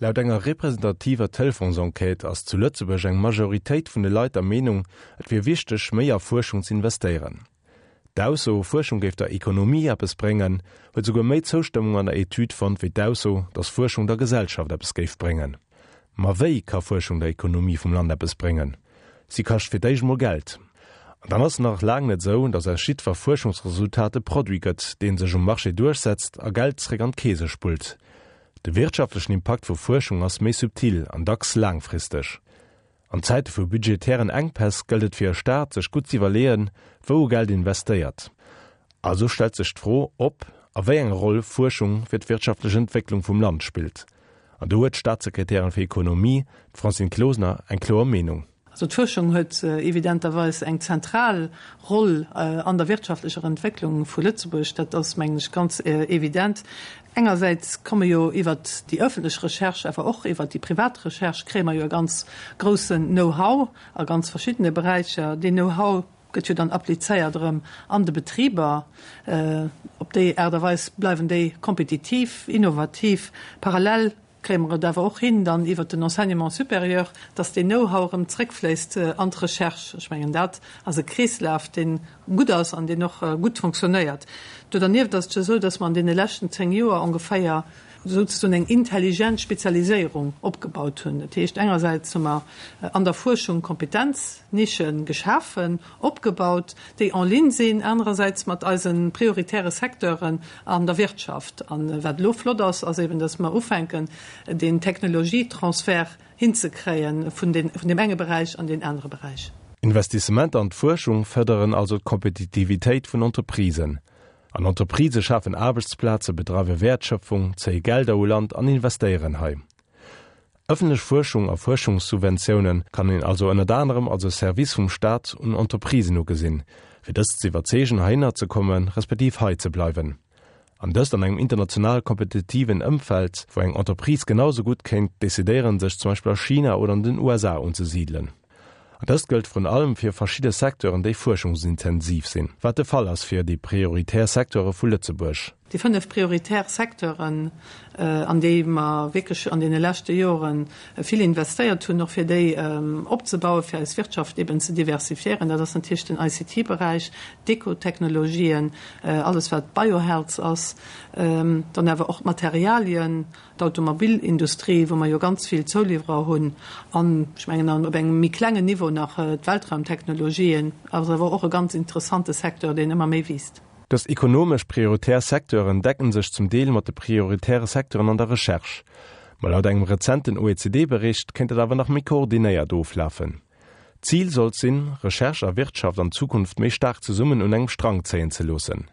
Laut enger representativer Telefonsenquête ass zu Lëtzebuerg eng Majoritéit vun de Leit der Meenung, et wier wichteg, méi a Fuerschung z'investéieren. D'Ausso, Fuerschung géif der Ekonomie eppes bréngen, huet souguer méi Zoustëmmung an der Etüd fonnt wéi d'Ausso, datt Fuerschung der Gesellschaft eppes géif bréngen. Ma wéi ka Fuerschung der Ekonomie vum Land eppes bréngen? Si kascht fir d'éischt mol Geld. An dann ass et nach laang net esou, datt aus jiddwer Fuerschungsresultat e Produit gëtt, dee sech um Marché duerchsetzt a Geld zréck an d'Keese spullt. De wirtschaftlechen Impakt vu Fuerschung ass méi subtil an dacks laangfristeg. An Zäite vu budgetären Enkpäss gëllt et fir e Staat, sech gutt z'iwwerleeën, wou e Geld investéiert. Also stellt sech d'Fro, ob a wéi eng Roll Fuerschung fir d'wirtschaftlech Entwécklung vum Land spillt. An do huet d'Staatssekretärin fir Ekonomie, d'Francine Closener, eng kloer Meenung. Also d'Fuerschung huet evidenterweis eng zentral Roll an der wirtschaftlecher Entwécklung vu Lëtzebuerg. Dat ass, mengen ech, ganz evident. Engersäits komme jo iwwert déi öffentlech Recherche, awer och iwwert déi privat Recherche kréie mer jo e ganz groussen Know-how a ganz verschiddene Beräicher. Deen Know-how gëtt jo dann applizéiert erëm an de Betriber. Op déi Aart a Weis bleiwen déi kompetitiv, innovativ. Parallel kréie mer et awer och hin, dann iwwert den Enseignement supérieur, dass deen Know-how erëm zréckfléisst an d'Recherche. Ech mengen, dat ass e Kreeslaf, dee gutt ass an deen och gutt fonctionnéiert. Do dernieft ass et jo esou, dass mer an deene leschten 10 Joer ongeféier souzesoen eng intelligent Spezialiséierung opgebaut hunn. Dat heescht, engersäits hu mer an der Fuerschung Kompetenz-Nische geschafen, opgebaut, déi en ligne sinn anerersäits mat eise prioritäre Secteuren an der Wirtschaft. A wat elo flott ass, ass eben, dass mer ufänken, deen Technologietransfert hinzekréie vun deem enge Beräich an deen anere Beräich. Investissementer an d'Fuerschung fërderen also d'Kompetitivitéit vun Entreprisen. An Entreprisë schafen Aarbechtsplaze, bedreiwe Wäertschöpfung, zéie Gelder u Land an investéieren hei. Ëffentlech Fuerschung a Fuerschungssubventioune kann een also ënnert anerem als e Service vum Staat un Entreprisen ugesinn, fir dës ze iwwerzeegen heihinner ze komme respektiv hei ze bleiwen. An dëst an engem international kompetitiven Ëmfeld, wou eng Entreprise genau sou gutt kéint decidéieren, sech zum Beispill a China oder an den USA unzesidelen. An dëst gëllt vrun allem fir verschidde Secteuren, déi fuerschungsintensiv sinn, wat de Fall ass fir déi prioritär Secteure vu Lëtzebuerg. Déi 5 prioritär Secteuren, an déi mer wierklech an deene leschte Jore vill investéiert hunn, och fir déi opzebauen, fir eis Wirtschaft eben ze diversifiéieren, dat ass natierlech den ICT-Beräich, d'Ekotechnologien, alles wat Biohealth ass, dann awer och d'Materialien, d'Automobilindustrie, wou mer jo ganz vill Zouliwwerer hunn, an ech mengen an op engem méi klengen Niveau nach d'Weltraumtechnologien ass awer och e ganz interessante Secteur, deen ëmmer méi wiisst. Dës ekonomesch prioritär Secteuren decken sech zum Deel mat de prioritäre Secteuren an der Recherche. Ma laut engem rezenten OECD-Bericht kéint dat awer nach méi koordinéiert oflafen. D'Zil sollt sinn, Recherche a Wirtschaft an Zukunft méi staark zesummen un engem Strang zéien ze loossen.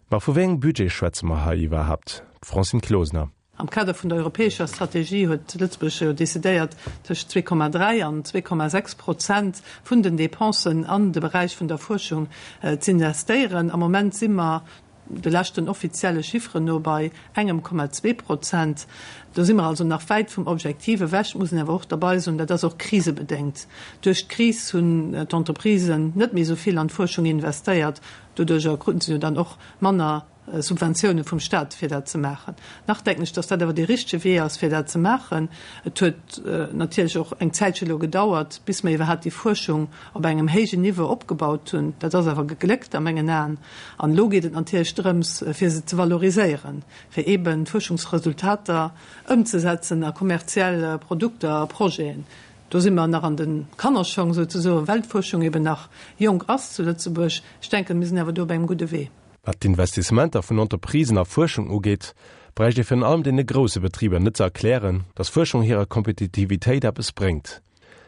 Ma vu wéi engem Budget schwätze mer hei iwwerhaapt? D'Francine Closener. Am Kader vun der europäescher Strategie huet Lëtzebuerg jo decidéiert, tëscht 2,3 an 2,6 Prozent vun den Dépensen an de Beräich vun der Fuerschung z'investéieren. Am Moment si mer de leschten offizielle Chifferen no bei engem Komma zwee Prozent. Do si mer also nach wäit vum Objektiv ewech, muss een awer och derbei soen, dat ass och krisebedéngt. Duerch d'Kris hunn d'Entreprisen net méi esou vill an d'Fuerschung investéiert. Doduerjer kruten se jo dann och manner Subventioune vum Staat, fir dat ze maachen. Nach denken ech, datt dat awer dee richtege Wee ass, fir dat ze maachen. Et huet natierlech och eng Zäitche elo gedauert, bis mer iwwerhaapt déi Fuerschung op engem héijen Niveau opgebaut hunn. Dat ass awer gegléckt a mengen Aen. An elo geet et natierlech drëms, fir se ze valoriséieren, fir eeben d'Fuerschungsresultater ëmzesetzen a kommerziell Produkter a Projeten. Do si mer nach an de Kannerschong souzesoen, well d'Fuerschung eben nach jonk ass zu Lëtzebuerg. Ech denken, mir sinn awer do op engem gudde Wee. Wat d'Investissementer vun Entreprisen a Fuerschung ugeet, bräicht ee virun allem deene grousse Betriber net ze erklären, datt Fuerschung hirer Kompetitivitéit eppes bréngt.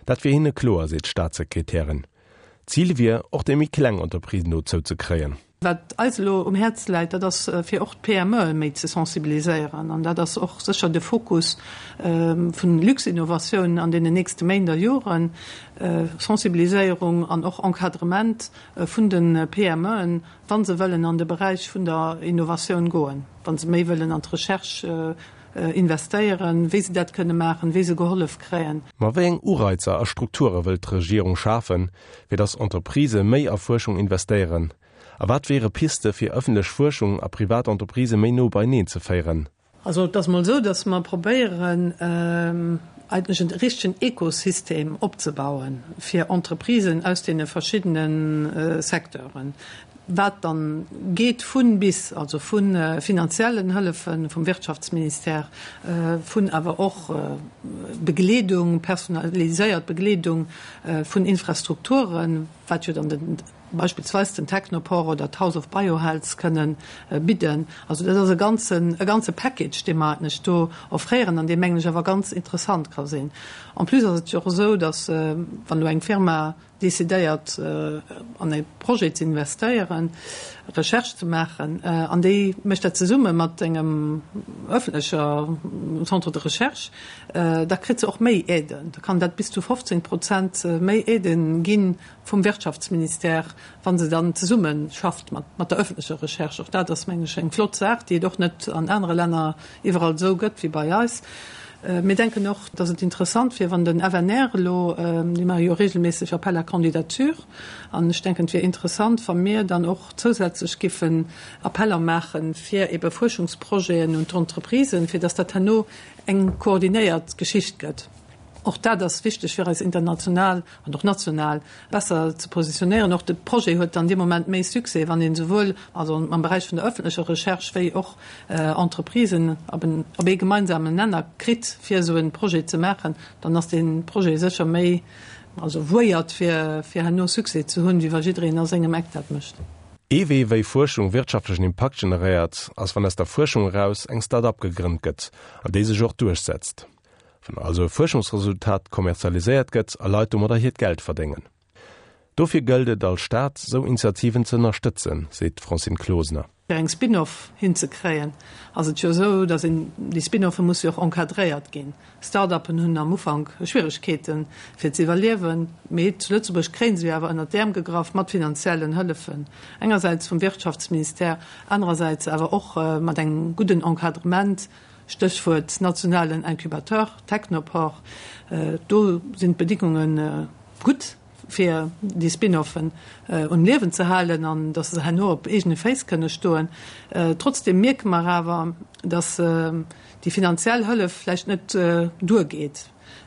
Dat wier hinne kloer, seet d'Staatssekretärin. D'Zil wier, och déi méi kleng Entreprisen dozou ze kréien. Wat eis elo um Häerz läit, dat ass fir och d'PMEe méi ze sensibiliséieren. An dat ass och sécher de Fokus vun Luxinnovation an deenen nächste Méint a Joren, Sensibiliséierung an och Encadrement vun de PMEen, wa se wëllen an de Beräich vun der Innovatioun goen, wa se méi wëllen an d'Recherche investéieren, wéi se dat kënne maachen, wéi se gehollef kréien. Ma wéi eng Ureizer a Strukture wëllt d'Regierung schafen, fir datt Entreprisë méi a Fuerschung investéieren? A wat wiere Piste fir ëffentlech Fuerschung a privat Entreprisë méi no beieneen ze féieren? Also et ass mol esou, datt mer probéieren, eigentlech en richtegen Ekosystem opzebauen fir Entreprisen aus deene verschiddene Secteuren, wat dann geet vun bis, also vu finanziellen Hëllefe vum Wirtschaftsministère, vun awer och Begleedung, personaliséiert Begleedung vun Infrastrukturen, wat jo dann den beispillsweis den Technoport oder d'House of Biohealth kënnen bidden. Also dat ass e ganzen, e ganze Package, dee mer eigentlech do offréieren an dee, mengen ech, awer ganz interessant ka sinn. En plus ass et jo och esou, datt, wann elo eng Firma decidéiert, an e Projet ze investéieren, Recherche ze maachen, an déi mécht dat zesumme mat engem öffentlecher Centre de recherche, da kritt se och méi Aiden. Da kann dat bis zu 15 Prozent méi Aiden ginn, vum Wirtschaftsministère, wa se dann zesumme schafft mat der öffentlecher Recherche. Och dat ass, mengen ech, eng flott Saach, déi et och net an anere Länner iwwerall esou gëtt wéi bei eis. Mir denken och, dass et interessant wier, wann den FNR elo, déi maache jo regelméisseg Appel à candidatures, an ech denken, et wier interessant, wa mir dann och zousätzlech giffen Appeller maache fir ebe Fuerschungsprojeten un d'Entreprisen, fir dass dat herno eng koordinéiert Geschicht gëtt. Och dat ass wichteg fir eis international an och national besser ze positionéieren. Och de Projet huet dann dee Moment méi Succès, wann een esouwuel also am Beräich vun der öffentlecher Recherche wéi och Entreprisen op en, op ee gemeinsamen Nenner kritt, fir esou e Projet ze maachen. Dann ass dee Projet sécher méi, also vouéiert fir, fir herno Succès ze hunn, wéi wa jiddereen a sengem Eck dat mécht. Ee Wee, wéi Fuerschung wirtschaftlechen Impakt generéiert, ass wann aus der Fuerschung eraus eng Start-up gegrënnt gëtt an déi sech och duerchsetzt. Wann also e Fuerschungsresultat kommerzialiséiert gëtt a Leit domadder hiert Geld verdéngen. Dofir gëllt et als Staat, sou Initiativen ze ënnerstëtzen, seet d'Francine Closener. Fir eng Spin-off hinzekréien, ass et jo esou, datt een, déi Spin-offe musse jo och encadréiert ginn. Start-uppen hunn am Ufank Schwieregkeeten, fir ze iwwerliewen, mee zu Lëtzebuerg kréie se jo awer ënnert d'Äerm gegraff mat finanziellen Hëllefen, engersäits vum Wirtschaftsministère, anerersäits awer och mat engem gudden Encadrement Stéchwuert nationalen Incubateur, Technoport, do sinn d'Bedingunge gutt, fir déi Spin-offen um Liewen ze halen an datt se herno op eegene Féiss kënne stoen. Trotzdeem mierke mer awer, datt déi finanziell Hëllef vläicht net duergeet.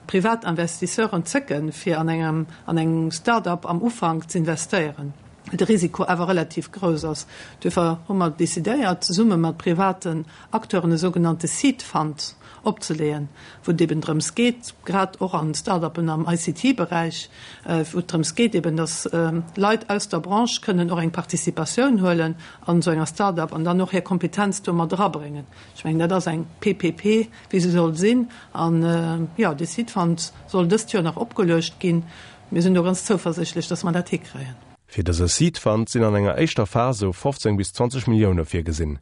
Privat Investisseuren zécken, fir an engem an eng Start-up am Ufank z'investéieren, well de Risiko awer relativ grouss ass. Duerfir hu mer decidéiert, zesumme mat privaten Acteuren e sougenannte Seed Fund opzeleeën, wou et eben drëms geet, grad och an Start-upen am ICT-Beräich, wou et drëms geet eben, dass Leit aus der Branche kënnen och eng Participatioun huelen an esou enger Start-up an dann och hir Kompetenz do mat erabréngen. Ech mengen, dat ass eng PPP, wéi se soll sinn. An, jo, dee Seed Fund soll dëst Joer nach opgeluecht ginn. Mir sinn do ganz zouversichtlech, dass mer dat hikréien. Fir dëse Seed Fund sinn an enger éischter Phas esou 15 bis 20 Millioune virgesinn.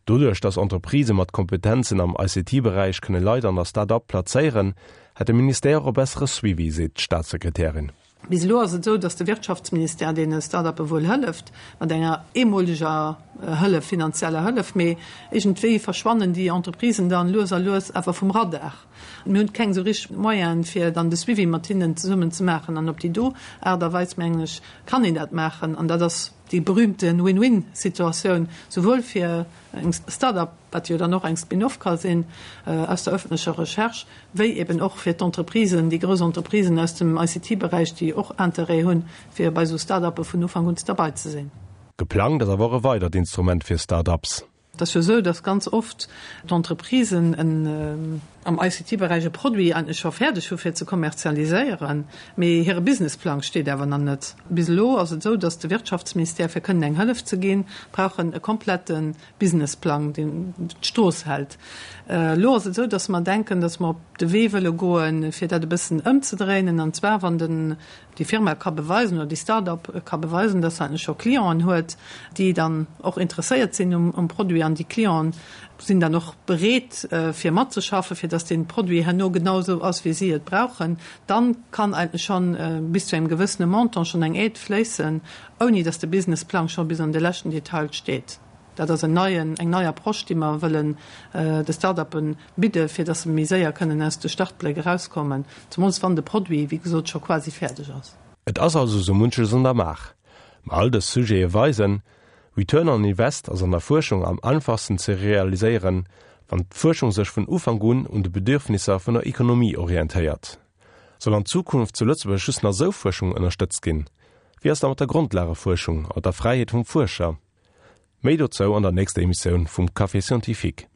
Doduerch, dass Entreprisë mat Kompetenzen am ICT-Beräich kënne Leit an der Start-up plazéieren, hätt de Ministère och e bessere Suivi, seet d'Staatssekretärin. Bis elo ass et esou, datt de Wirtschaftsministère deene Start-uppe wuel hëlleft, mat enger eemoleger Hëllef, finanzieller Hëllef, mee iergendwéi verschwannen déi Entreprisen dann lues a lues awer vum Radar. Mir hunn keng esou richteg Moyenen, fir dann de Suivi mat hinnen zesummen ze maachen. An op déi do Aart a Weis, mengen ech, kann een dat maachen. An dat ass déi berühmte Win-win-Situatioun, souwuel fir eng Start-up, wat jo dann och eng Spin-off ka sinn aus der öffentlecher Recherche, wéi eben och fir d'Entreprisen, déi grouss Entreprisen aus dem ICT-Beräich, déi och Interêt hunn, fir bei esou Start-uppe vun Ufank un derbei ze sinn. Geplangt ass awer och e weidert Instrument fir Start-ups. Et ass jo esou, dass ganz oft d'Entreprisen en am ICT-Beräich e Produit eigentlech scho fäerdeg hu fir ze kommerzialiséieren, mee hire Businessplang steet awer nach net. Bis elo ass et esou, dass de Wirtschaftsministère, fir kënnen eng Hëllef ze ginn, brauch en e komplette Businessplang, deen d'Strooss hält. Elo ass et esou, dass mer denken, dass mer op de Wee wëlle goen, fir dat e bëssen ëmzedréinen, an zwar wann den, déi Firma ka beweisen oder déi Start-up ka beweisen, dass se eigentlech scho Clienten huet, déi dann och interesséiert sinn um Produit, an déi Clienten sinn dann och bereet, fir matzeschaffen, fir dass dee Produit herno genau esou ass, wéi si et brauchen, dann kann eigentlech schonn bis zu engem gewëssene Montant schonn eng Aide fléissen, ouni dass de Businessplang scho bis an de leschten Detail steet. Dat ass en neien, eng nei Approche, déi mer wëllen de Start-uppe bidde fir datt se méi séier kënnen aus de Startbléck erauskommen, zemools wann de Produit, wéi gesot, scho quasi fäerdeg ass. Et ass also sou munches an der Maach. Ma all dës Sujete weisen, Return on Invest ass an der Fuerschung am einfachsten ze realiséieren, Wann d'Fuerschung sech vun Ufank un un de Bedürfnisser vun der Ekonomie orientéiert. Soll an Zukunft zu Lëtzebuerg just nach sou Fuerschung ënnerstëtzt ginn? Wéi ass da mat der Grondlagefuerschung a mat der Fräiheet vum Fuerscher? Méi dozou an der nächster Emissioun vum Café Scientifique.